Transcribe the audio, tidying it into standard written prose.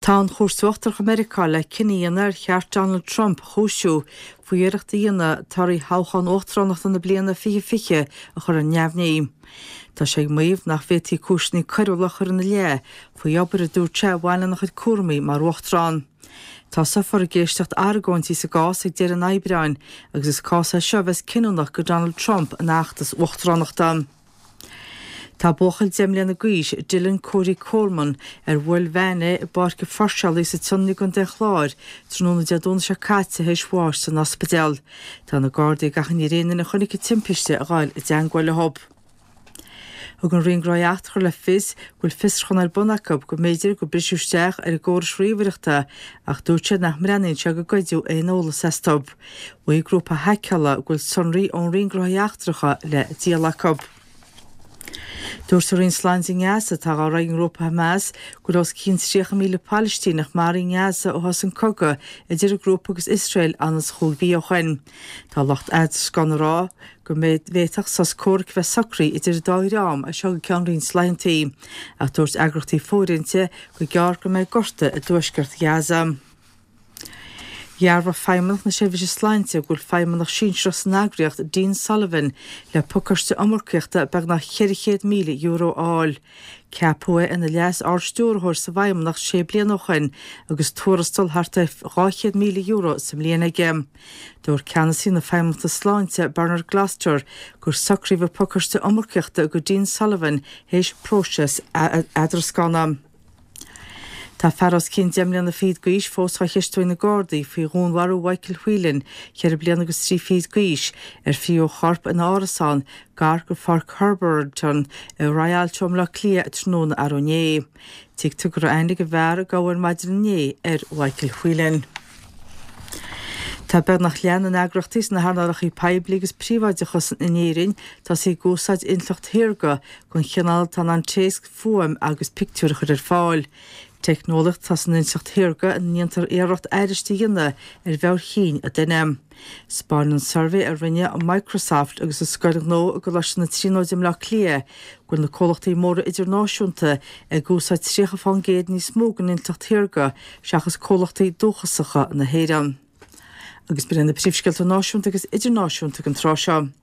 Tá an Chúirt Uachtarach i Meiriceá le cinneadh a dhéanamh ar cheart Donald Trump a chúisiú faoi iarracht a dhéanamh torthaí thoghchán uachtaránachta na bliana 2020 a chur ar neamhní. Tá sé ag maíomh nach bhféadfaí cúiseanna coiriúla a chur ina leith faoi obair a dúirt sé a bhain lena chuid cúraimí mar uachtarán. Tosófar ag éisteacht argóintí sa gcás ag deireadh an Aibreáin agus is cás é seo a bheas cinniúnach do Donald Trump ina fheachtas uachtaránachta. Tá buachaill 10 mbliana d'aois, Dylan Cody Coleman, ar bhuail veain é i bPáirc an Pháirceálaí sa tSionainn i gContae an Chláir tráthnóna Dé Domhnaigh seo caite théis bháis san ospidéal. Tá na Gardaí ag achainí ar aon duine a chonaic an timpiste a ghabháil i dteangmháil leo. Thug an Roinn Gnóthaí Eachtracha le fios go bhfuil fiosrúchán ar bun acu go mb'fhéidir gur briseadh isteach ar a gcórais ríomhaireachta ach dúirt siad nach mbreathnaíonn sé gur goideadh aon eolas astu. Mhaígh grúpa haiceála go bhfuil sonraí ón Roinn Gnóthaí Eachtracha le díol acu. Dúirt an Roinn Sláinte i nGaza, atá á rith ag an ngrúpa Hamas, go bhfuil os cionn 30,000 Palaistíneach maraithe i nGaza ó thosaigh an cogadh idir an grúpa agus Iosrael anonn is chúig mhí ó shin. Tá lucht eadrascána ag rá go bhféadfadh sos comhraic a bheith socraithe idir an dá dhream as seo go ceann roinnt laethanta, ach dúirt eagraíochtaí fóirithinte gur gearr go mbeidh gorta i dtuaisceart Ghaza. Dhearbhaigh Feidhmeannacht na Seirbhíse Sláinte go bhfuil feidhmeannach sinsearach san eagraíocht, Dean Sullivan, le pacáiste iomarcaíochta beagnach €400,000 a fháil. Ceapadh é ina Leas-Ard-Stiúrthóir sa bhFeidhmeannacht sé bliana ó shin agus tuarastal thart ar €200,000 sa mbliain aige. Dúirt ceannasaí na Feidhmeannachta Sláinte, Bernard Gloster, gur socraíodh an pacáiste iomarcaíochta do Dean Sullivan théis próiseas eadrascána. Tá fear os cionn 10 mbliana fichead d'aois fós á cheistiú ag na Gardaí faoi dhúnmharú Mhichael Whelan, 4 bliana agus 3 fichid d'aois, ar fríothadh a chorp ina árasán gar do Pháirc Herberton i Rialto i mBleá Cliath tráthnóna arú inné. Tuigtear go raibh aithne ag an bhfear a gabhadh ar maidin inné ar Mhichael Whelan. Tá beagnach leath na n-eagraíochtaí sna hearnálacha poiblí agus príobháideacha in Éirinn tosaithe ag úsáid intleacht shaorga den chineál atá in ann téacs, fuaim agus pictiúir a chur ar fáil. Teicneolaíocht atá san intleacht shaorga ina ndéantar iarracht aithris a dhéanamh ar mheabhair chinn an duine. 'Spáineann suirbhé a rinne Microsoft agus an Scoil Ghnó i gColáiste na Tríonóide i mBleá Cliath go bhfuil na comhlachtaí móra idirnáisiúnta ag úsáid 30 fán gcéad níos mó den intleacht shaorga seachas comhlachtaí dúchasacha na hÉireann. Agus b'in iad na príomhscéalta náisiúnta agus idirnáisiúnta ag an tráth seo.